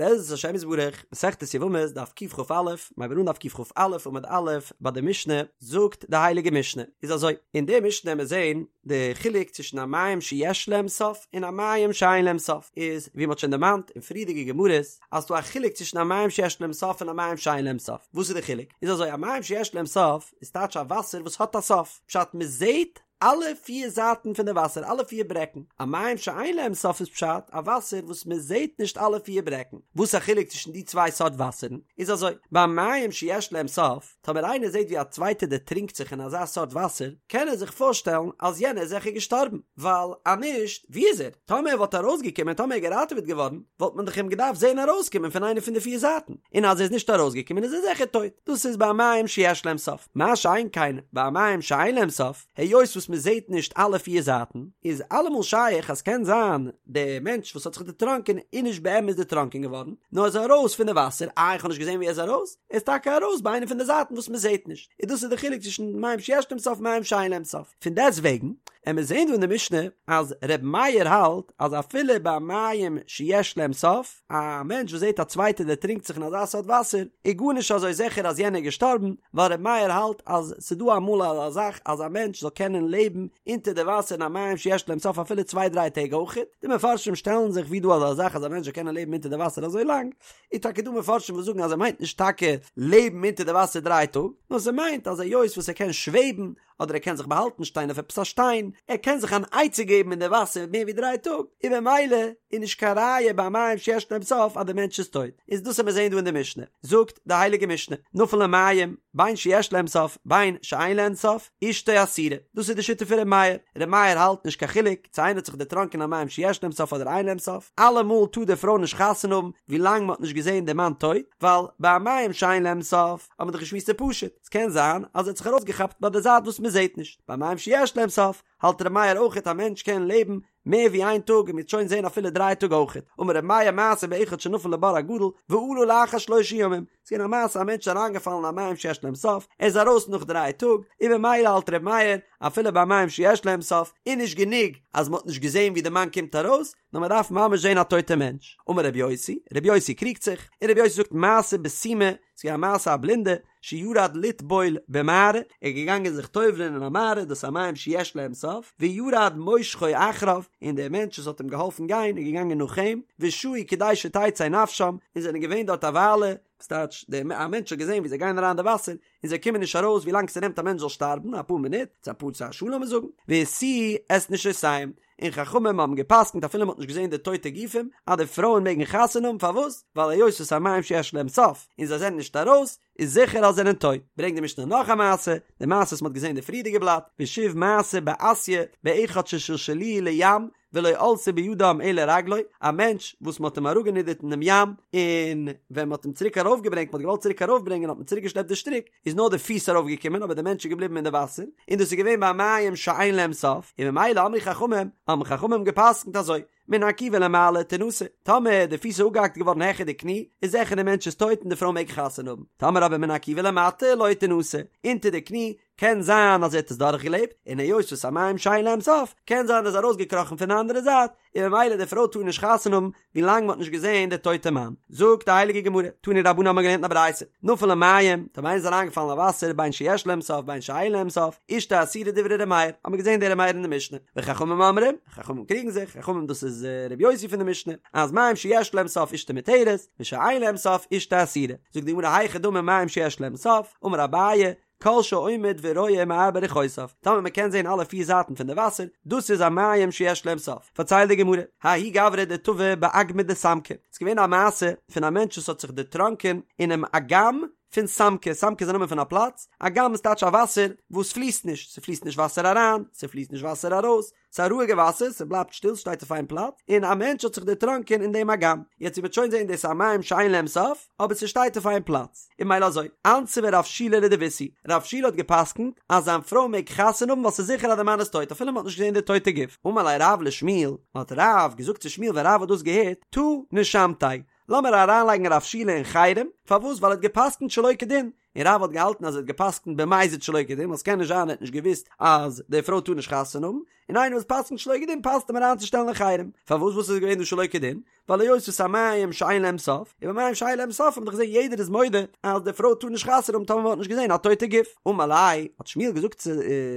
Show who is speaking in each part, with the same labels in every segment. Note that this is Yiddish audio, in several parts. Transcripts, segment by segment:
Speaker 1: בעזרת השם יתברך, מסכת יבמות דף קכ"א, מ'הייבט אן דף קכ"א עמוד א', ביי די משנה, זאגט די הייליגע משנה, איז אזוי, אין די משנה וועמיר זען די חילוק צווישן א מים שיש להם סוף און א מים שאין להם סוף, איז ווי מ'האט שוין דערמאנט אין פריערדיגע גמרות, אז ס'דא א חילוק צווישן א מים שיש להם סוף און א מים שאין להם סוף, וואס איז די חילוק? איז אזוי, א מים שיש להם סוף איז טייטש א וואסער וואס האט א סוף, פשט מ'זעט אלע פיר זייטן פון די וואסער, אלע פיר ברעקן. א מים שאין להם סוף איז פשט, א וואסער וואס מען זעט נישט אלע פיר ברעקן. וואס א חילוק צווישן די צוויי סארט וואסערן? איז אזוי, ביי מים שיש להם סוף, טאמער איינער זעט ווי א צווייטער דערטרינקט זיך אין אזא סארט וואסער, קען ער זיך פארשטעלן אז יענער איז זיכער געשטארבן, ווייל אז נישט, וואו איז ער? טאמער ער וואלט ארויסגעקומען, טאמער ער איז געראטעוועט געווארן, וואלט מען דאך אים געדארפט זען ארויסקומען פון איינע פון די פיר זייטן, און אז ער איז נישט ארויסגעקומען איז ער זיכער טויט. דאס איז ביי מים שיש להם סוף. מה שאין כן ביי מים שאין להם סוף, היות וואס מען זעט נישט אלע פיר זייטן, איז אלעמאל שייך אז קען זיין דער מענטש וואס האט זיך דערטראנקען איז נישט באמת דערטראנקען געווארן, נאר איז ארויס פון די וואסער, איי איך האב נישט געזען ווי ער איז ארויס? ער איז טאקע ארויס ביי איינע פון די זייטן וואס מען זעט נישט. און דאס איז די חילוק צווישן מים שיש להם סוף מים שאין להם סוף. פון דעסט וועגן, עמיר זעהן דא אין די משנה אז ר' מאיר האלט אז אפילו ביי מים שיש להם סוף, א מענטש וואס זעהט א צווייטער דערטרינקט זיך אין אזא סארט וואסער, איז גארנישט אזוי זיכער אז יענער איז געשטארבן, ווייל ר' מאיר האלט אז ס'דא אמאל אזא זאך אז א מענטש זאל קענען לעבן אונטער די וואסער אין א מים שיש להם סוף אפילו צוויי דריי טעג אויכעט, די מפרשים שטעלן זיך ווי דא אזא זאך אז א מענטש זאל קענען לעבן אונטער די וואסער אזוי לאנג, איז טאקע דא מפרשים וואס זאגן אז ער מיינט נישט טאקע לעבן אונטער די וואסער דריי טאג, נאר ס'מיינט אז היות וואס ער קען שוועבן, אדער ער קען זיך באהאלטן שטיין אויף עפעס א שטיין, ער קען זיך אן עצה געבן אין די וואסער מער ווי דריי טאג, און במילא איז נישט קיין ראיה ביי מים שיש להם סוף אז די מענטש איז טויט, איז דאס וועט מען זען דא אין די משנה, זאגט די הייליגע משנה, נפל למים, בין שיש להם סוף בין שאין להם סוף, אשתו אסורה, דאס איז די שיטה פון ר' מאיר, ר' מאיר האלט נישט קיין חילוק צו איינער האט זיך דערטראנקען אין א מים שיש להם סוף אדער אין להם סוף, אלעמאל טאר די פרוי נישט חתונה האבן ווי לאנג מען האט נישט געזען די מאן טויט, ווייל ביי א מים שאין להם סוף האט מען דאך געשמועסט ס'איז פשוט, ס'קען זיין אז ער האט זיך ארויסגעכאפט ביי די זייט וואס מען זעט נישט, ביי מים שיש להם סוף האלט ר' מאיר אויכעט א מענטש קען לעבן מער ווי איין טאג און מ'וועט שוין זען אפילו דריי טאג אויכעט, אמר ר' מאיר מעשה באחד שנפל לבור הגדול ועלה לאחר שלושה ימים, ס'איז געווען א מעשה א מענטש איז אריינגעפאלן אין א מים שיש להם סוף, ער איז ארויס נאך דריי טאג, און במילא האלט ר' מאיר אפילו ביי מים שיש להם סוף איז נישט גענוג אז מ'האט נישט געזען ווי די מאן קומט ארויס, נאר מען דארף ממש זען א טויטע מענטש. אמר רבי יוסי, רבי יוסי קריגט זיך, און רבי יוסי זאגט מעשה בסומא, ס'איז געווען א מעשה א בלינדע, שירד לטבול במערה, ער איז געגאנגען זיך טובל'ען אין א מערה, דאס איז א מים שיש להם סוף, וירד מושכו אחריו, און דער מענטש וואס האט אים געהאלפן גיין איז געגאנגען נאך אים, ושהו כדי שתצא נפשם, און זענען געווען דארט א וויילע, ס'טייטש, דער א מענטש האט געזען ווי זיי גייען אריין אין די וואסער, און זיי קומען נישט ארויס ווי לאנג ס'נעמט א מענטש זאל שטארבן, אפאר מינוט, צו אפאר צו א שעה לאמיר זאגן, והשיאוה את נשותיהם, און חכמים האבן געפסקנט אפילו מ'האט נישט געזען די טויטע גופים, אז די פרויען מעגן חתונה האבן, פארוואס? ווייל היות עס איז א מים שיש להם סוף, און זיי זענען נישט ארויס, איז זיכער אז זיי זענען טויט. ברענגט די משנה נאך א מעשה, די מעשה וואס מ'האט געזען אין די פריערדיגע בלאט, ושוב מעשה באסיא, באחד ששלשלוהו לים, ולא עלתה בידם אלא רגלו, א מענטש וואס מ'האט אים אראפגענידערט אינעם ים, און ווען מ'האט אים צוריק ארויפגעברענגט, מ'האט געוואלט צוריק ארויפברענגען האט מען צוריקגעשלעפט די שטריק, איז נאר די פיס ארויפגעקומען אבער די מענטש איז געבליבן אין די וואסער, און דאס איז געווען ביי מים שאין להם סוף, און ממילא אמרו חכמים, האבן חכמים גע'פסק'נט אזוי, מן הרקיבה ולמעלה תנשא, טאמער די פיס איז אפגעהאקט געווארן העכער די קני, איז זיכער די מענטש איז טויט און די פרוי מעג חתונה האבן, טאמער אבער מן הרקיבה ולמטה לא תנשא, אונטער די קני, קען זיין אז ער האט עס דורכגעלעבט, און היות וואס ס'איז א מים שאין להם סוף, קען זיין ער איז ארויסגעקראכן פון די אנדערע זייט, און ממילא די פרוי טאר נישט חתונה האבן ווי לאנג מ'האט נישט געזען די טויטע מאן. זאגט די הייליגע גמרא, תנו רבנן האבן מיר געלערנט אין א ברייתא, נפל למים, טאמער איינער איז אריינגעפאלן אין וואסער בין שיש להם סוף בין שאין להם סוף, אשתו אסורה דברי ר' מאיר, האבן מיר געזען די ר' מאיר אין די משנה, וחכמים אומרים, חכמים קריגן זיך, חכמים דאס איז ר' יוסי פון די משנה, אז מים שיש להם סוף אשתו מותרת, ושאין להם סוף אשתו אסורה. זאגט די גמרא היכי דמי מים שיש להם סוף, אמר אביי, כל שעומד ורואה מארבע רוחותיו, טאמער מען קען זען אלע פיר זייטן פון די וואסער, דאס איז א מים שיש להם סוף. פארציילט די גמרא, ההוא גברא דטבע באגמא דסמקי, ס'איז געווען א מעשה פון א מענטש וואס האט זיך דערטראנקען אינעם אגם פון סמקי, סמקי איז א נאמען פון א פלאץ, אגם איז טייטש א וואסער וואס פליסט נישט, ס'פליסט נישט וואסער אריין, ס'פליסט נישט וואסער ארויס, ס'איז א רואיגע וואסער, ס'בלייבט שטיל, ס'שטייט אויף איין פלאץ, און א מענטש האט זיך דערטראנקען אין דעם אגם. יעצט ווי מ'וועט שוין זען דאס איז א מים שאין להם סוף, אבער ס'שטייט אויף איין פלאץ. און ממילא אזוי, אנסבה רב שילא לדביתהו, רב שילא האט גע'פסק'נט אז זיין פרוי מעג חתונה האבן ווייל ס'איז זיכער אז די מאן איז טויט אפילו מ'האט נישט געזען די טויטע גוף. אמר ליה רב לשמואל, האט רב געזאגט צו שמואל ווען רב האט דאס געהערט, תא נשמתיה, לאמיר אריינלייגן רב שילא אין חרם, פארוואס? ווייל ער האט גע'פסק'נט שלא כדין, און רב האט געהאלטן אז ער האט גע'פסק'נט במזיד שלא כדין, ווייל ס'קען נישט זיין ער האט נישט געוואוסט אז די פרוי טאר נישט חתונה האבן, און איינער וואס פסק'נט שלא כדין פאסט אים אריינצושטעלן אין חרם. פארוואס וואס איז געווען דא שלא כדין? ווייל היות וואס ס'איז א מים שאין להם סוף, און ביי מים שאין להם סוף האט מען דאך געזען יעדער איז מודה אז די פרוי טאר נישט חתונה האבן טאמער מען האט נישט געזען א טויטע גוף. אמר ליה, האט שמואל געזאגט צו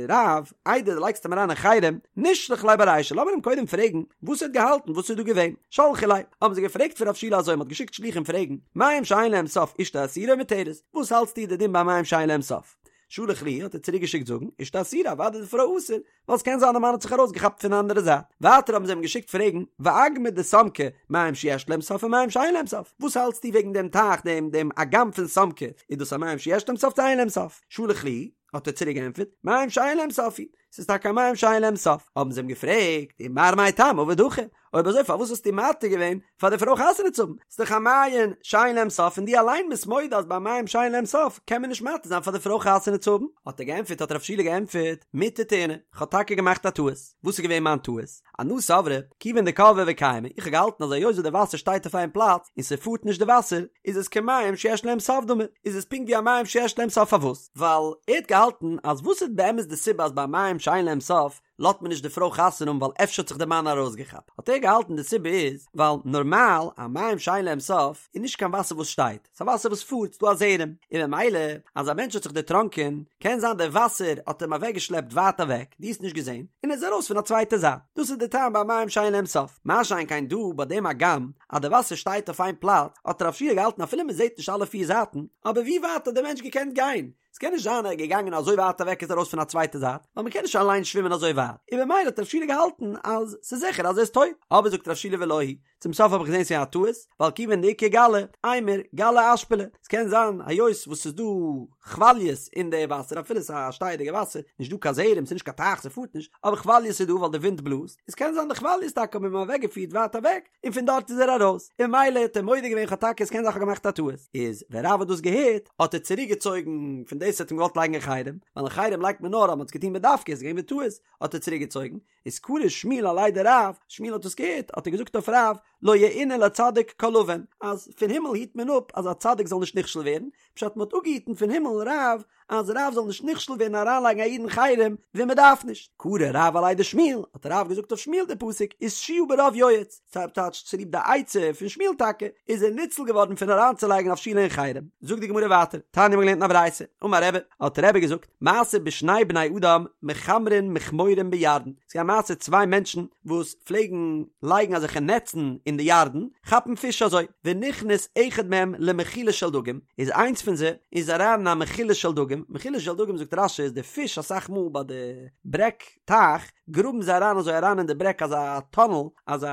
Speaker 1: רב, איידער דו לייגסט אים אריין אין חרם, נשלח ליה ברישא, לאמיר אים קודם פרעגן וואס ער האט געהאלטן, וואס איז דא געווען. שלחו ליה, האבן זיי געפרעגט פון רב שילא אזוי, מען האט געשיקט שליחים פרעגן, מים שאין להם סוף אשתו אסורה או מותרת, וואס האלטסטו די דין ביי מים שאין להם סוף? שלח להו, האט ער צוריק געשיקט זאגן, אשתו אסורה, אוודאי איז די פרוי אסור, ווייל ס'קען זיין די מאן האט זיך ארויסגעכאפט פון די אנדערע זייט. ווייטער האבן זיי אים געשיקט פרעגן, ואגמא דסמקי, מים שיש להם סוף או מים שאין להם סוף? וואס האלטסטו וועגן דעם טייך, דעם דעם אגם פון סמקי, איז דאס א מים שיש להם סוף צו אין להם סוף? שלח להו, האט ער צוריק געענטפערט, מים שאין להם סוף הוא, ס'איז טאקע א מים שאין להם סוף. האבן זיי אים געפרעגט, ומר מאי טעמא עביד הכי? אויב אזוי פארוואס האסטו מתיר געווען פאר די פרוי חתונה צו האבן? ס'איז דאך א מעיין שאין להם סוף און דו אליין ביסט מודה אז ביי מים שאין להם סוף קען מען נישט מתיר זיין פאר די פרוי חתונה צו האבן. האט ער געענטפערט האט רב שילא געענטפערט מטעא טעינא, כ'האב טאקע געמאכט א טעות. וואס איז געווען מיין טעות? אנא סברי, כיוון דקבעי וקיימי, איך האב געהאלטן אז היות וואס די וואסער שטייט אויף איין פלאץ און ס'פארט נישט די וואסער, איז עס כמים שיש להם סוף דמי, איז עס פונקט ווי א מים שיש להם סוף פארוואס? ווייל ער האט געהאלטן אז וואס איז באמת די סיבה אז ביי מים שאין להם סוף לאזט מען נישט די פרוי חתונה האבן ווייל אפשר האט זיך די מאן ארויסגעכאפט, האט ער געהאלטן די סיבה איז ווייל נארמאל א מים שאין להם סוף איז נישט קיין וואסער וואס שטייט, ס'איז א וואסער וואס פארט, ס'דא א זרם, און ממילא אז א מענטש האט זיך דערטראנקען קען זיין די וואסער האט אים אוועקגעשלעפט ווייט אוועק, דו האסט נישט געזען, און ער איז ארויס פון א צווייטע זייט, דאס איז די טעם ביי מים שאין להם סוף, מה שאין כן דא ביי דעם אגם אז די וואסער שטייט אויף איין פלאץ, האט רב שיע געהאלטן אפילו מען זעט נישט אלע פיר זייטן, אבער ווי ווייט האט דער מענטש געקענט גיין? ס'קען נישט זיין ער איז געגאנגען אזוי ווייט אוועק איז ארויס פון א צווייטע זייט, ווייל מ'קען נישט אליין שווימען אזוי ווייט, און במילא האט רב שילא געהאלטן אז ס'איז זיכער אז ער איז טויט, אבער זאגט רב שילא ולא היא, צום סוף האב איך געזען ס'איז א טעות, ווייל כיוון דאיכא גלי, אימור, גלי אשפליה, ס'קען זיין היות וואס ס'איז דא כוואליעס אין די וואסער אפילו ס'איז א שטייעדיגע וואסער, נישט דא קיין זרם, ס'איז נישט קיין טייך ס'פארט נישט, אבער כוואליעס איז דא ווייל די ווינט בלאזט, איז קען זיין די כוואליעס טאקע האבן אים אוועקגעפירט ווייט אוועק, און פון דארט איז ער ארויס, און ממילא האט ער מודה געווען כ'האב טאקע עס קען זיין כ'האב געמאכט א טעות, איז ווען רב האט דאס געהערט האט ער צוריק געצויגן פון דאס האט אים געוואלט לייגן אין חרם, ווייל אין חרם לייגט מען נאר אז מ'האט עס געטון בדווקא איז געווען בטעות האט ער צוריק געצויגן, איז קרא שמואל עליה דרב, שמואל האט דאס געהערט האט ער געזאגט אויף רב, לא יאונה לצדיק כל און, אז פון הימל היט מען אפ אז א צדיק זאל נישט נכשל ווערן, פשט מ'האט אפגעהיטן פון הימל רב אז רב זאל נישט נכשל ווערן אריינלייגן א איד אין חרם ווען מ'דארף נישט. קרא רב עליה דשמואל, האט רב געזאגט אויף שמואל די פסוק ותשועה ברוב יועץ, ס'טייטש צוליב די עצה פון שמואל טאקע איז ער ניצל געווארן פון אריינצולייגן רב שילא אין חרם. זאגט די גמרא ווייטער, תניא מ'האט געלערנט אין א ברייתא, אמר רבי, האט רבי געזאגט, מעשה בשני בני אדם מכמרין מכמורים בירדן, ס'איז געווען א מעשה צוויי מענטשן וואס פלעגן לייגן אזעלכע נעצן אין די ירדן, כאפן פיש אזוי, ונכנס אחד מהם למחילה של דגים, איז איינס פון זיי איז אריין אין א מחילה של דגים, מחילה של דגים זאגט רש"י איז די פיש אסאך מאל ביי די ברעג טייך גראבן זיי אריין אזוי אריין אין די ברעג אזא טאנעל אזא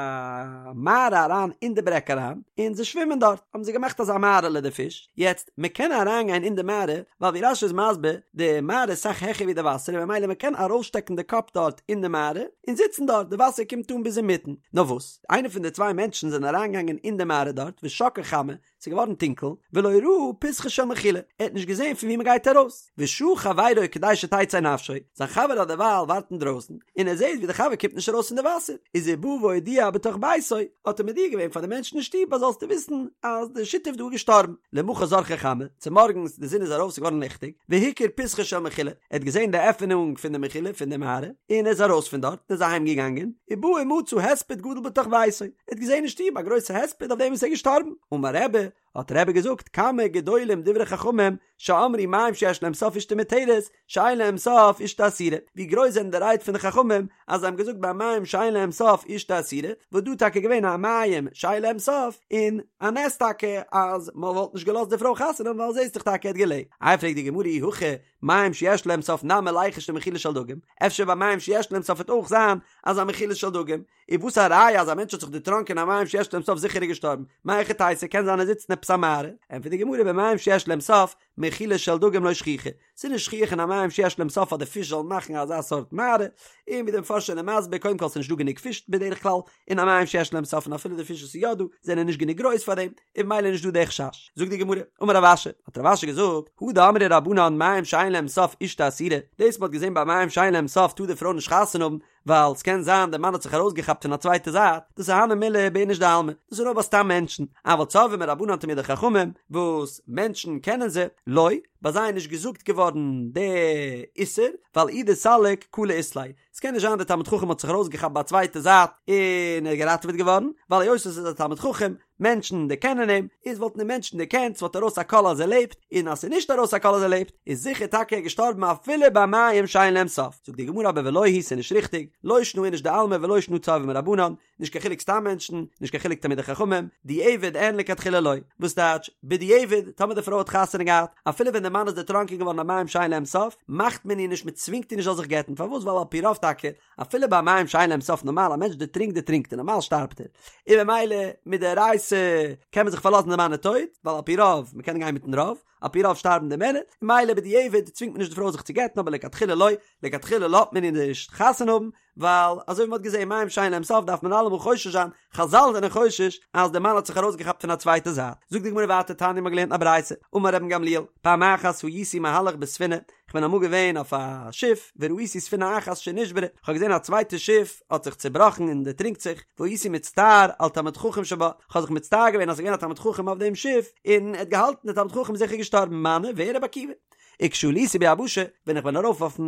Speaker 1: מערה אריין אין די ברעג אריין און זיי שווימען דארט האבן זיי געמאכט אזא מערה'לע די פיש, יעצט מען קען אריין גיין אין די מערה ווייל ווי רש"י איז מסביר די מערה איז אסאך העכער ווי די וואסער און ממילא מען קען ארויסשטעקן די קאפ דארט אין די מערה און זיצן דארט די וואסער קומט אן ביז אינמיטן, נאר וואס איינער פון די צוויי מענטשן זענען אריינגעגאנגען אין די מערה דארט ושקעה חמה ס'איז געווארן טונקל, ולא ראה פתחה של מחילה, ער האט נישט געזען פון וואו מ'גייט ארויס, ושהה חברו כדי שתצא נפשו, זיין חבר האט דערווייל ווארט אינדרויסן, און ער זעט ווי דער חבר קומט נישט ארויס פון די וואסער, איז ובא והודיע בתוך ביתו, האט ער מודיע געווען פאר די מענטשן אין שטוב אז זאלסטו וויסן אז דער שותף דא איז געשטארבן, למחר זרחה חמה, צומארגנס די זון איז ארויף ס'איז געווארן ליכטיג, והכיר פתחה של מחילה, ער האט געזען די עפענונג פון די מחילה פון די מערה, און ער איז ארויס פון דארט, און איז אהיים געגאנגען, ובא ומצא הספד גדול בתוך ביתו, ער האט געזען אין שטוב א גרויסע הספד אויף דעם וואס ער איז געשטארבן. אמר רבי, האט רבי געזאגט, כמה גדולים דברי חכמים שאמרו מים שיש להם סוף אשתו מותרת, שאין להם סוף אשתו אסורה. ווי גרויס זענען די רייד פון די חכמים אז זיי האבן געזאגט ביי מים שאין להם סוף אשתו אסורה, וואס דא איז טאקע געווען א מים שאין להם סוף, און א נס טאקע אז מען וואלט נישט געלאזט די פרוי חתונה האבן ווייל זעסט דאך טאקע ער האט געלעבט. איי פרעגט די גמרא אי הכי מים שיש להם סוף נמי ליחוש למחילה של דגים, אפשר ביי מים שיש להם סוף וועט אויך זיין אזא מחילה של דגים, איז וואס א ראיה אז א מענטש האט זיך דערטראנקען אין א מים שיש להם סוף זיכער איז געשטארבן, מהיכי תיתי קען זיין ער זיצט אין עפעס א מערה, ענטפערט די גמרא במים שיש להם סוף, מחילה של דגים לא שכיחא, ס'איז נישט שכיח אין א מים שיש להם סוף אז די פיש זאלן מאכן אזא סארט מערה, און ווי די מפרשים זענען מסביר קודם כל ס'איז נישט דא גענוג פיש בדרך כלל אין א מים שיש להם סוף און אפילו די פיש וואס איז יא דא זענען נישט גענוג גרויס פאר דעם, און ממילא איז נישט דא די חשש. זאגט די גמרא, אמר רב אשי, האט רב אשי געזאגט, הא דאמרי רבנן מים שאין להם סוף אשתו אסורה, דאס מ'האט געזען ביי מים שאין להם סוף טאר די פרוי נישט חתונה האבן, ווייל ס'קען זיין דער מאן האט זיך ארויסגעכאפט פון א צווייטע זייט, דאס איז הני מילי באיניש דעלמא, דאס איז נאר ביי סתם מענטשן, אבל צורבא מרבנן תלמידי חכמים, וואס מענטשן קענען זיי, לא, ביי זיי איז נישט געזאגט געווארן די איסור, ווייל אי דסליק קלא אית ליה, ס'קען נישט זיין דער תלמיד חכם האט זיך ארויסגעכאפט ביי א צווייטע זייט און ער איז געראטעוועט געווארן, ווייל היות עס איז א תלמיד חכם, מענטשן דערקענען אים, איז וואלטן די מענטשן דערקענט, ס'וואלט ארויס א קול אז ער לעבט, און אז ס'איז נישט ארויס א קול אז ער לעבט, איז זיכער טאקע ער געשטארבן אפילו ביי מים שאין להם סוף. זאגט די גמרא אבער ולא היא ס'איז נישט ריכטיג, לא שנא איניש דעלמא ולא שנא צורבא מרבנן, נישט קיין חילוק סתם מענטשן, נישט קיין חילוק תלמידי חכמים, דיעבד אין לכתחילה לא. וואס טייטש, בדיעבד, טאמער די פרוי האט חתונה געהאט, אפילו ווען די מאן איז דערטראנקען געווארן אין מים שאין להם סוף, מאכט מען איר נישט, מען צווינגט איר נישט זאל זיך גט'ן, פארוואס ווייל על פי רוב טאקע, אפילו ביי מים שאין להם סוף נארמאל א מענטש דערטרינקט דערטרינקט ער נארמאל שטארבט ער, און ממילא מדאורייתא קען מען זיך פארלאזן די מאן איז טויט, ווייל על פי רוב, מען קען גיין מיטן רוב, על פי רוב שטארבן די מענער, ממילא בדיעבד צווינגט מען נישט די פרוי זיך צו גט'ן אבער לכתחילה לא, לכתחילה לאזט מען איר נישט חתונה האבן, ווייל אזוי ווי מ'האט געזען מים שאין להם סוף דארף מען אלעמאל חושש זיין, חזל זענען חושש אז די מאן האט זיך ארויסגעכאפט פון א צווייטע זייט. זאגט די גמרא ווייטער תניא מ'האט געלערנט א ברייתא, אמר רבן גמליאל, פעם אחת הייתי מהלך בספינה, כ'בין אמאל געווען אויף א שיף, וראיתי ספינה אחת שנשברה, כ'האב געזען א צווייטע שיף האט זיך צובראכן און דערטרינקט זיך, והייתי מצטער על תלמיד חכם שבה, כ'האב זיך מצטער געווען אז ס'איז געווען א תלמיד חכם אויף דעם שיף, און ער האט געהאלטן דער תלמיד חכם איז זיכער געשטארבן, מני, ווער? רבי עקיבא. וכשעליתי ביבשה, ווען איך בין ארויף אויפן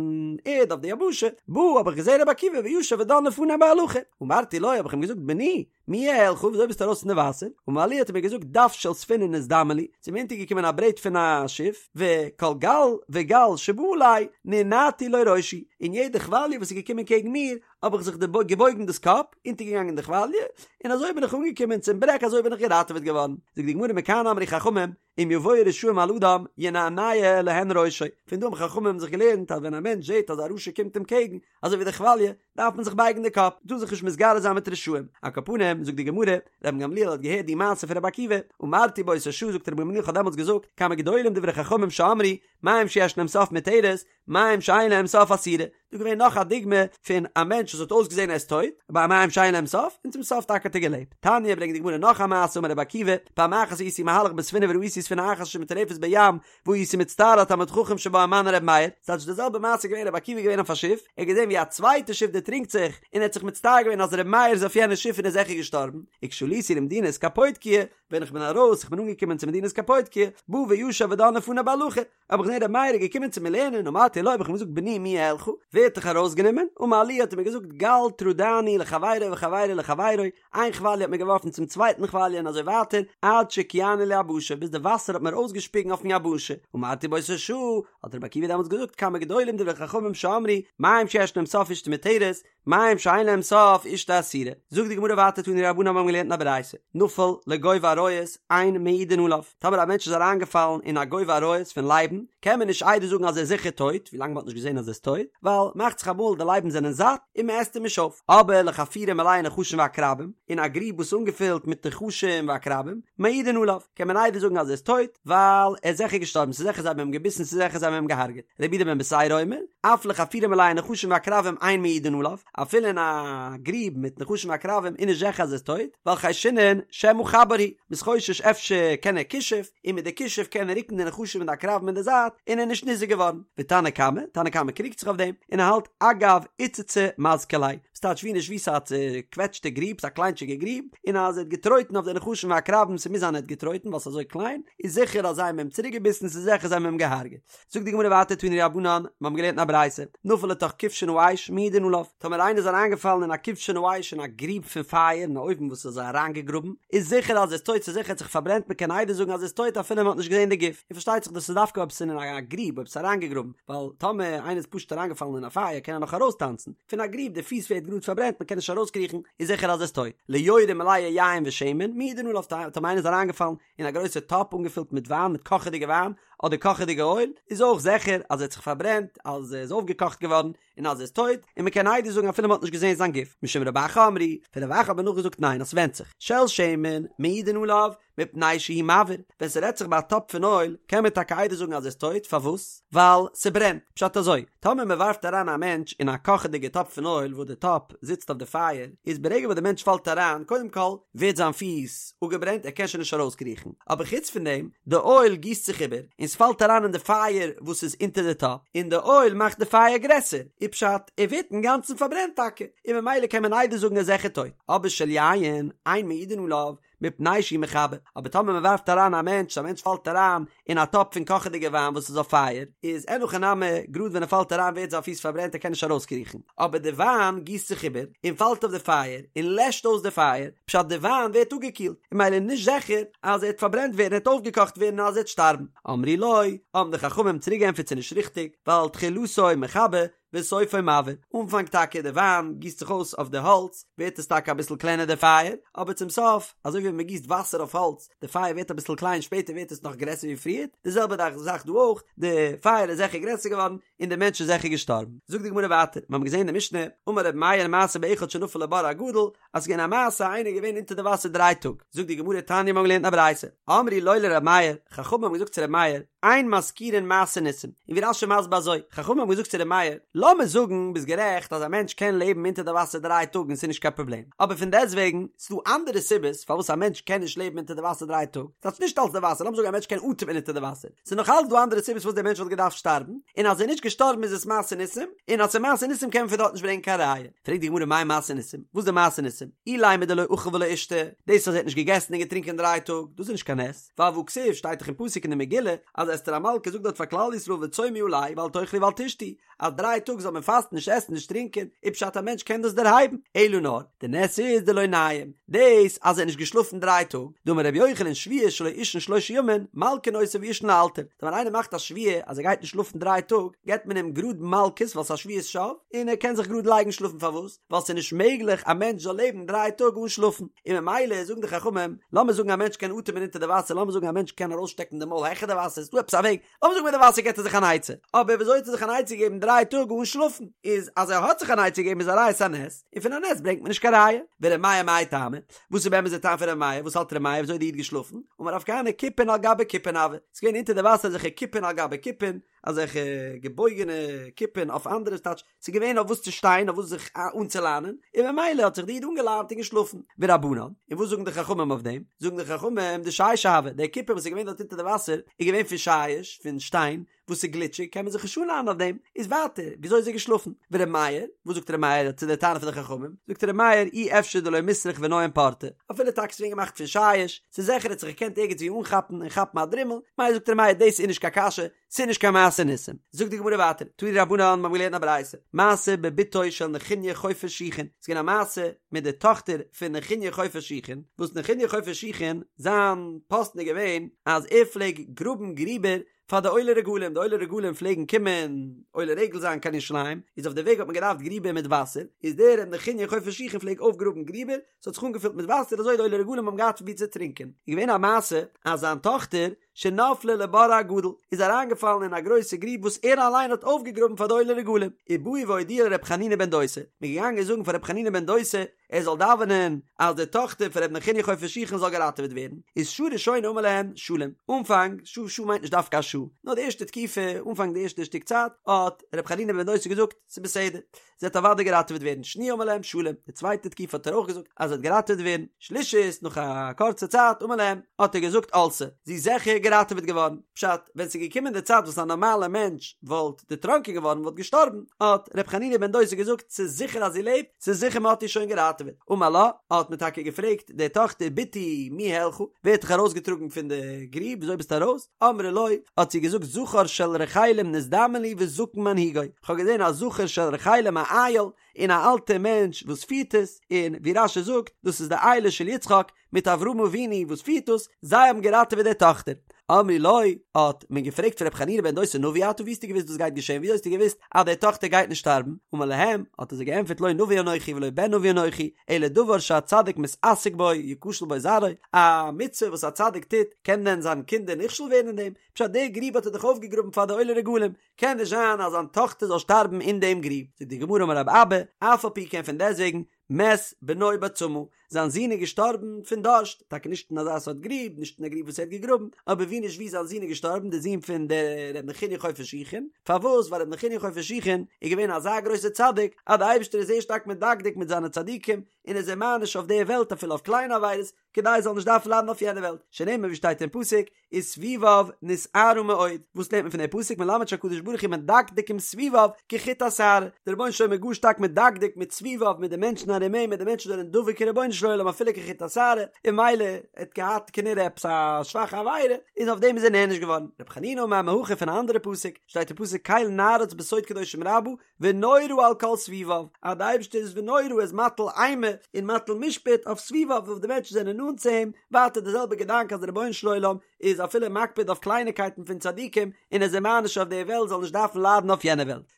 Speaker 1: ערד אויף די יבשה, בא האב איך געזען רבי עקיבא וישב ודן לפני בהלכה, אמרתי לו האב איך אים געזאגט בני, מי העלך וויאזוי ביסטו ארויס פון די וואסער? אמר לי האט ער מיר געזאגט דף של ספינה נזדמן לי, ס'איז מיר אונטערגעקומען א ברעט פון א שיף, וכל גל וגל שבא עלי נענעתי לו ראשי, און יעדע כוואליע וואס איז געקומען קעגן מיר האב איך זיך געבויגן דאס קאפ, אונטערגעגאנגען די כוואליע, און אזוי בין איך אנגעקומען צום ברעג אזוי בין איך געראטעוועט געווארן. זאגט די גמרא מכאן אמרו חכמים, אם יבואו רשעים על אדם ינענע להן ראשו, פון דא האבן חכמים זיך געלערנט אז ווען א מענטש זעט אז א רשע קומט אים קעגן, אזוי ווי די כוואליע, דארף מען זיך בייגן די קאפ, מ'טאר זיך נישט מתגרה זיין מיט רשעים. על כל פנים, זאגט די גמרא, רבן גמליאל האט געהערט די מעשה פון רבי עקיבא, אמרתי באותה שעה זאגט רבן גמליאל כ'האב דעמאלטס געזאגט, כמה גדולים דברי חכמים שאמרו, מים שיש להם סוף מותרת, מים שאין להם סוף אסורה. דא געווען נאך א דוגמא פון א מענטש וואס האט אויסגעזען ער איז טויט, ביי מים שאין להם סוף, און צום סוף טאקע האט ער געלעבט. תניא ברענגט די גמרא נאך א מעשה אמר רבי עקיבא, פעם אחת הייתי מהלך בספינה וראיתי ספינה אחת שמטורפת בים, והייתי מצטער על תלמיד חכם שבה ומנו ר' מאיר, ס'טייטש די זעלבע מעשה געווען רבי עקיבא געווען אויף א שיף, ער האט געזען ווי א צווייטע שיף דערטרינקט זיך, און ער האט זיך מצטער געווען אז ר' מאיר איז אויף יענע שיף און איז זיכער געשטארבן, וכשעליתי למדינת קפוטקיא, ווען איך בין ארויס, איך בין אנגעקומען צו מדינת קפוטקיא, בא וישב ודן לפני בהלכה, האב איך געזען ר' מאיר איז געקומען צו מיר לערנען, אמרתי לו האב איך אים געזאגט בני מי העלך, ווער האט דיך ארויסגענומען, אמר לי האט ער מיר געזאגט גל טרדני לחבירו וחבירו לחבירו, איין כוואליע האט מיר געווארפן צום צווייטן כוואליע און אזוי ווייטער, עד שהקיאני ליבשה, ביז די וואסער האט מיר אויסגעשפיגן אויפן יבשה, אמרתי באותה שעה, האט רבי עקיבא דעמאלטס געזאגט כמה גדולים דברי חכמים שאמרו, מים שיש להם סוף אשתו מותרת, מים שאין להם סוף אשתו אסורה. זאגט די גמרא ווייטער תנו רבנן מיר האבן געלערנט אין א ברייתא, נפל לגוב אריות אין מעידין עליו, טאמער א מענטש איז אריינגעפאלן אין א גוב אריות פון לייבן, קען מען נישט עדות זאגן אז ער איז זיכער טויט, ווילאנג מען האט נישט געזען אז ער איז טויט, ווייל מאכט זיך אמאל די לייבן זענען זאט און מען עסט אים נישט אויף. אבער לחפירה מלאה נחשים ועקרבים, אין א גריב וואס איז אנגעפילט מיט נחשים ועקרבים, מעידין עליו, קען מען עדות זאגן אז ער איז טויט, ווייל ער איז זיכער געשטארבן, ס'איז זיכער זיי האבן אים געביסן, ס'איז זיכער זיי האבן אים געהארגעט. רבי יהודה בן בתירא אומר, אף לחפירה מלאה נחשים ועקרבים אין מעידין עליו, אפילו אין א גריב מיט נחשים ועקרבים איז נישט זיכער אז ער איז טויט, ווייל חיישינן שמא חבר הוא, מ'איז חושש אפשר קען ער כישוף, און מיט די כישוף קען ער רוקן די נחשים און די עקרבים אין די זייט, און ער איז נישט ניזוק געווארן. ותנא קמא, תנא קמא קריגט זיך אויף דעם, און ער האלט אגב איצצא מזקי ליה, וואס טייטש ווי נישט ווי ס'איז א צוקוועטשטע גריב, ס'איז א קליינטשיגע גריב, און אז ער האט געטרויטן אויף די נחשים ועקרבים, ס'מוז זיין ער האט געטרויטן ווייל ס'איז אזוי קליין, איז זיכער אז זיי האבן אים צוריקגעביסן, ס'איז זיכער זיי האבן אים געהארגעט. זאגט די גמרא ווייטער תנו רבנן, מיר האבן געלערנט אין א ברייתא, נפל לתוך כבשן האש מעידין עליו, טאמער איינער איז אריינגעפאלן אין א כבשן האש אין א גריב פון פייער אין א אויוון וואס איז אריינגעגראבן, איז זיכער אז ער איז טויט ס'איז זיכער ער האט זיך פארברענט מען קען עדות זאגן אז ער איז טויט אפילו מען האט נישט געזען די גוף, און פארשטייט זיך דאס איז דווקא אויב ס'איז אין א גריב אויב ס'איז אריינגעגראבן, ווייל טאמער איינער איז פשוט אריינגעפאלן אין א פייער קען ער נאך ארויסטאנצן, פון א גריב די פיס ווערט גראד פארברענט מען קען נישט ארויסקריכן, איז זיכער אז ער איז טויט. ליורה מלאה יין ושמן, מעידין עליו טאמער איינער איז אריינגעפאלן אין א גרויסע טאפ אנגעפילט מיט וויין מיט קאכעדיגע וויין אדער קאכעדיגע אויל, איז אויך זיכער אז ער האט זיך פארברענט, אז ער איז אויפגעקאכט געווארן, און אז ער איז טויט, און מען קען עדות זאגן אפילו מען האט נישט געזען זיין גוף, משום רב אחא אמרו, פון רב אחא האט מען נאכגעזאגט ניין אז ס'ווענדט זיך, של שמן, מעידין עליו, מפני שהוא מבעיר, ווען ס'רעדט זיך ביי א טאפ פון אויל, קען מען טאקע עדות זאגן אז ער איז טויט, פארוואס? ווייל ס'ברענט, פשט אזוי, טאמער מען ווארפט אריין א מענטש אין א קאכעדיגע טאפ פון אויל וואס די טאפ זיצט אויף די פייער, איז ברגע וואס די מענטש פאלט אריין, קודם כל ווערט זיין פיס אפגעברענט ער קען שוין נישט ארויסקריכן, אבער חוץ פון דעם, די אויל גיסט זיך איבער, און ס'פאלט אריין אין די פייער וואס איז אונטער די טאפ, און די אויל מאכט די פייער גרעסער, איז פשט, ער ווערט אינגאנצן פארברענט טאקע, און ממילא קען מען עדות זאגן ער איז זיכער טויט, אבער של יין, אין מעידין עליו. מפני שהוא מכבה, אבער טאמער מען ווארפט אריין א מענטש, א מענטש פאלט אריין אין א טאפ פון קאכעדיגע וויין וואס איז אויף פייער, איז אין הכי נמי, גראד ווען ער פאלט אריין ווערט זיין פיס פארברענט ער קען נישט ארויסקריכן, אבער די וויין גיסט זיך איבער און פאלט אויף די פייער און לעשט אויס די פייער, פשט די וויין ווערט אפגעקילט, און ממילא איז נישט זיכער אז ער וועט פארברענט ווערן ער וועט אויפגעקאכט ווערן און אז ער וועט שטארבן. אמרו לו, האבן די חכמים צוריק געענטפערט ס'איז נישט ריכטיג, ווייל תחילתו מכבה וסופו מבעיר, אנפאנג טאקע די וויין גיסט זיך אויס אויף די האלץ ווערט עס טאקע אביסל קלענער די פייער, אבער צום סוף אזוי ווי ווען מען גיסט וואסער אויף האלץ די פייער ווערט אביסל קליין שפעטער ווערט עס נאך גרעסער ווי פריער, די זעלבע זאך דא אויך, די פייער איז זיכער גרעסער געווארן און די מענטש איז זיכער געשטארבן. זאגט די גמרא ווייטער, מיר האבן געזען אין די משנה, אמר רבי מאיר מעשה באחד שנפל לבור הגדול, אז ס'איז געווען א מעשה איינער איז געווען אונטער די וואסער דריי טאג, זאגט די גמרא תניא מיר האבן געלערנט א ברייתא, אמרו לו לר' מאיר, חכמים האבן געזאגט צו ר' מאיר, אין מזכירין מעשה ניסים, און ווי רש"י מסביר אזוי, חכמים האבן געזאגט צו ר' מאיר, לאמיר זאגן ביסט גערעכט אז א מענטש קען לעבן אונטער די וואסער דריי טאג און ס'איז נישט קיין פראבלעם, אבער פון דעסטוועגן ס'איז דא אנדערע סיבות פארוואס א מענטש קען נישט לעבן אונטער די וואסער דריי טאג, ס'הייסט נישט אלס די וואסער, לאמיר זאגן א מענטש קען אטעמען אונטער די וואסער, ס'איז נאך אלץ דא אנדערע סיבות פארוואס דער מענטש וואלט געדארפט שטארבן, און אז ער איז נישט געשטארבן איז עס מעשה ניסים, און אז ס'איז מעשה ניסים קען מען פון דארט נישט ברענגען קיין ראיה. פרעגט די גמרא מאי מעשה ניסים, וואס איז די מעשה ניסים? אילימא דלא אכל ולא אישתי, דאס אז ער האט נישט געגעסן און געטרינקען דריי טאג, דאס איז נישט קיין נס, ווייל והכתיב שטייט דאך אין פסוק אין די מגילה אז אסתר המלכה זאגט דארט פאר כלל ישראל וצומו עלי ואל תאכלו ואל תשתו, אז דריי טאג זאל מען פאסטן נישט עסן נישט טרינקען, איז פשט א מענטש קען דאס דערהייבן, אלא נאר, די נס איז דלא ניים, דאס אז ער האט נישט געשלאפן דריי טאג, דאמר רבי יוחנן שבועה שלא יישן שלשה ימים, מלקין אותו ויישן לאלתר, ווען איינער מאכט א שבועה אז ער גייט נישט שלאפן דריי טאג, געבט מען אים גראד מלקות ווייל ס'איז א שבועת שוא, און ער קען זיך גראד לייגן שלאפן פארוואס? ווייל ס'איז נישט מעגליך א מענטש זאל לעבן דריי טאג אן שלאפן, און ממילא זאגן די חכמים, לאמיר זאגן א מענטש קען אטעמען אונטער די וואסער, לאמיר זאגן א מענטש קען ארויסשטעקן די מויל העכער די וואסער, ס'איז דא עפעס א וועג, לאמיר זאגן מיט די וואסער געט ער זיך אן עצה, אבער וויאזוי האט ער זיך אן עצה געגעבן דריי טאג אן שלאפן? איז אז ער האט זיך אן עצה געגעבן איז א ראיה ס'איז א נס, און פון א נס ברענגט מען נישט קיין ראיה. ור' מאיר מאי טעמא? וואס איז באמת די טעם פון ר' מאיר? וואס האלט ר' מאיר וויאזוי איז די איד געשלאפן? אמר רב כהנא כיפין על גבי כיפין הוו, ס'איז געווען אונטער די וואסער אזעלכע כיפין על גבי כיפין, אזעלכע געבויגענע כיפין אויף אנדערע ס'טייטש ס'איז געווען אויף וואס צו שטיין אויף וואס זיך אנצולאנען און ממילא האט זיך די איד אנגעלאנט און געשלאפן ורבנן און וואס זאגן די חכמים אויף דעם זאגן די חכמים דשישא הוה די כיפין וואס איז געווען דארט אונטער די וואסער איז געווען פון שיש פון שטיין וואס איז גליטשיג קען מען זיך נישט אנלאנען אויף דעם איז ווייטער וויאזוי איז ער געשלאפן ור' מאיר וואס זאגט ר' מאיר צו די טענה פון די חכמים זאגט ר' מאיר אי אפשר דלא מיסרך וניים פורתא אפילו טאקע ס'איז געווען געמאכט פון שיש ס'איז זיכער ער האט זיך געקענט ערגעץ ווי אנכאפן און כאפן א דרימל מילא זאגט ר' מאיר דאס איז נישט קיין קשיא ס'איז נישט קיין מעשה ניסים. זאגט די גמרא ווייטער, תנו רבנן, מ'האבן געלערנט א ברייתא, מעשה בבתו של נחוניא חופר שיחין, ס'איז געווען א מעשה מיט די טאכטער פון נחוניא חופר שיחין, וואס נחוניא חופר שיחין, זיין פאסטן איז געווען אז ער פלעג גראבן גריבער פאר די עולי רגלים, די עולי רגלים פלעגן קומען עולה רגל זיין קיין ירושלים, איז אויף די וועג האט מען געדארפט גריבער מיט וואסער, איז דער ר' נחוניא חופר שיחין פלעג אויפגראבן גריבער, ס'האט זיך אנגעפילט מיט וואסער אזוי די עולי רגלים האבן געהאט פון וואו צו טרינקען, איז געווען א מעשה אז זיין טאכטער שנפלה לבור הגדול, איז אריינגעפאלן אין א גרויסע גריב וואס ער אליין האט אויפגעגראבן פאר די עולי רגלים, ובאו והודיעו לר' חנינא בן דוסא, מען איז געגאנגען זאגן פאר ר' חנינא בן דוסא ער זאל דאווענען אז די טאכטער פון ר' נחוניא חופר שיחין זאל געראטעוועט ווערן, איז שעה ראשונה אמר להם שלום, אנפאנג, שעה שעה מיינט נישט דווקא א שעה, נאר די ערשטע תקופה, אנפאנג די ערשטע שטיק צייט, האט ר' חנינא בן דוסא געזאגט, ס'איז בסדר. זי וועט אוודאי געראטעוועט ווערן, שניה אמר להם שלום, די צווייטע תקופה האט ער אויך געזאגט אז זי וועט געראטעוועט ווערן, שלישית נאך א קורצע צייט אמר להם האט ער געזאגט עלתה, זי איז זיכער געראטעוועט געווארן, פשט, ווען ס'איז געקומען די צייט וואס א נארמאלער מענטש וואלט דערטראנקען געווארן וואלט געשטארבן, האט ר' חנינא בן דוסא געזאגט ס'איז זיכער אז זי לעבט, ס'איז זיכער מ'האט איר שוין געראטעוועט, אמר לה, האט מען טאקע געפרעגט די טאכטער בתי מי העלך, ווער האט דיך ארויסגעטראגן פון די גריב, וויאזוי ביסטו ארויס? אמרה לו, האט זי געזאגט זכר של רחלים נזדמן לי וזקן מנהיגו, כ'האב געזען א זכר של רחלים א איל, און א אלטע מענטש וואס פירט עס, און ווי רש"י זאגט, דאס איז די אילו של יצחק מיט אברהם אבינו וואס פירט דאס, זיי האבן געראטעוועט די טאכטער. אמרו לו, האט מען געפרעגט פון ר' חנינא בן דוסא נביא אתה ווי האסטו געוואוסט דאס גייט געשען ווי האסטו געוואוסט אז די טאכטער גייט נישט שטארבן, אמר להם, האט ער זיי געענטפערט לא נביא אנכי ולא בן נביא אנכי, אלא דבר שהצדיק מתעסק בו יכשל בו זרעו, א מצוה וואס א צדיק טוט, קען דען זיין קינדער נכשל ווערן אין דעם? פשט די גריב האט ער דאך אויפגעגראבן פאר די עולי רגלים, קען נישט זיין אז זיין טאכטער זאל שטארבן אין דעם גריב. זאגט די גמרא אמר רב אבא, אף על פי כן פון דעסטוועגן, מת בנו בצמא, זיין זון איז געשטארבן פון דארשט, טאקע נישט אין אזא סארט גריב, נישט אין א גריב וואס ער האט געגראבן, אבער ווי נישט ווי זיין זון איז געשטארבן, דער זון פון דער ר' נחוניא חופר שיחין, פארוואס? ווייל ר' נחוניא חופר שיחין איז געווען אזא גרויסער צדיק, אז דער אייבערשטער איז זייער שטארק מדקדק מיט זיינע צדיקים, און איז זיי מעניש אויף דער וועלט אפילו אויף קליינע עבירות, כדי ער זאל נישט דארפן ליידן אויף יענער וועלט, שנאמר ווי שטייט אין פסוק, וסביביו נשערה מאוד, וואס לערנט מען פון דער פסוק מלמד שהקדוש ברוך הוא מדקדק עם סביביו כחוט השערה, דער רבונו של עולם איז גאר שטארק מדקדק מיט סביביו מיט די מענטשן ארום אים מיט די מענטשן וואס זענען דבוק אין רבונו של עולם. של עולם אפילו כחוט השערה, און ממילא ער האט געהאט כנראה עפעס א שוואכע עבירה, איז אויף דעם איז ער נענש געווארן. רבי חנינא אמר מהכא פון א אנדערע פסוק, שטייט אין פסוק קל נערץ בסוד קדושים רבה, ונורא על כל סביביו, אז די אייבערשטער איז ונורא איז מטיל אימה און מטיל משפט אויף סביביו אויף די מענטשן זענען נאנט צו אים, ווייטער די זעלבע געדאנק אז די רבונו של עולם איז אפילו מקפיד אויף קלייניקייטן פון צדיקים און איז זיי מעניש אויף די וועלט זאל נישט דארפן ליידן אויף יענע וועלט.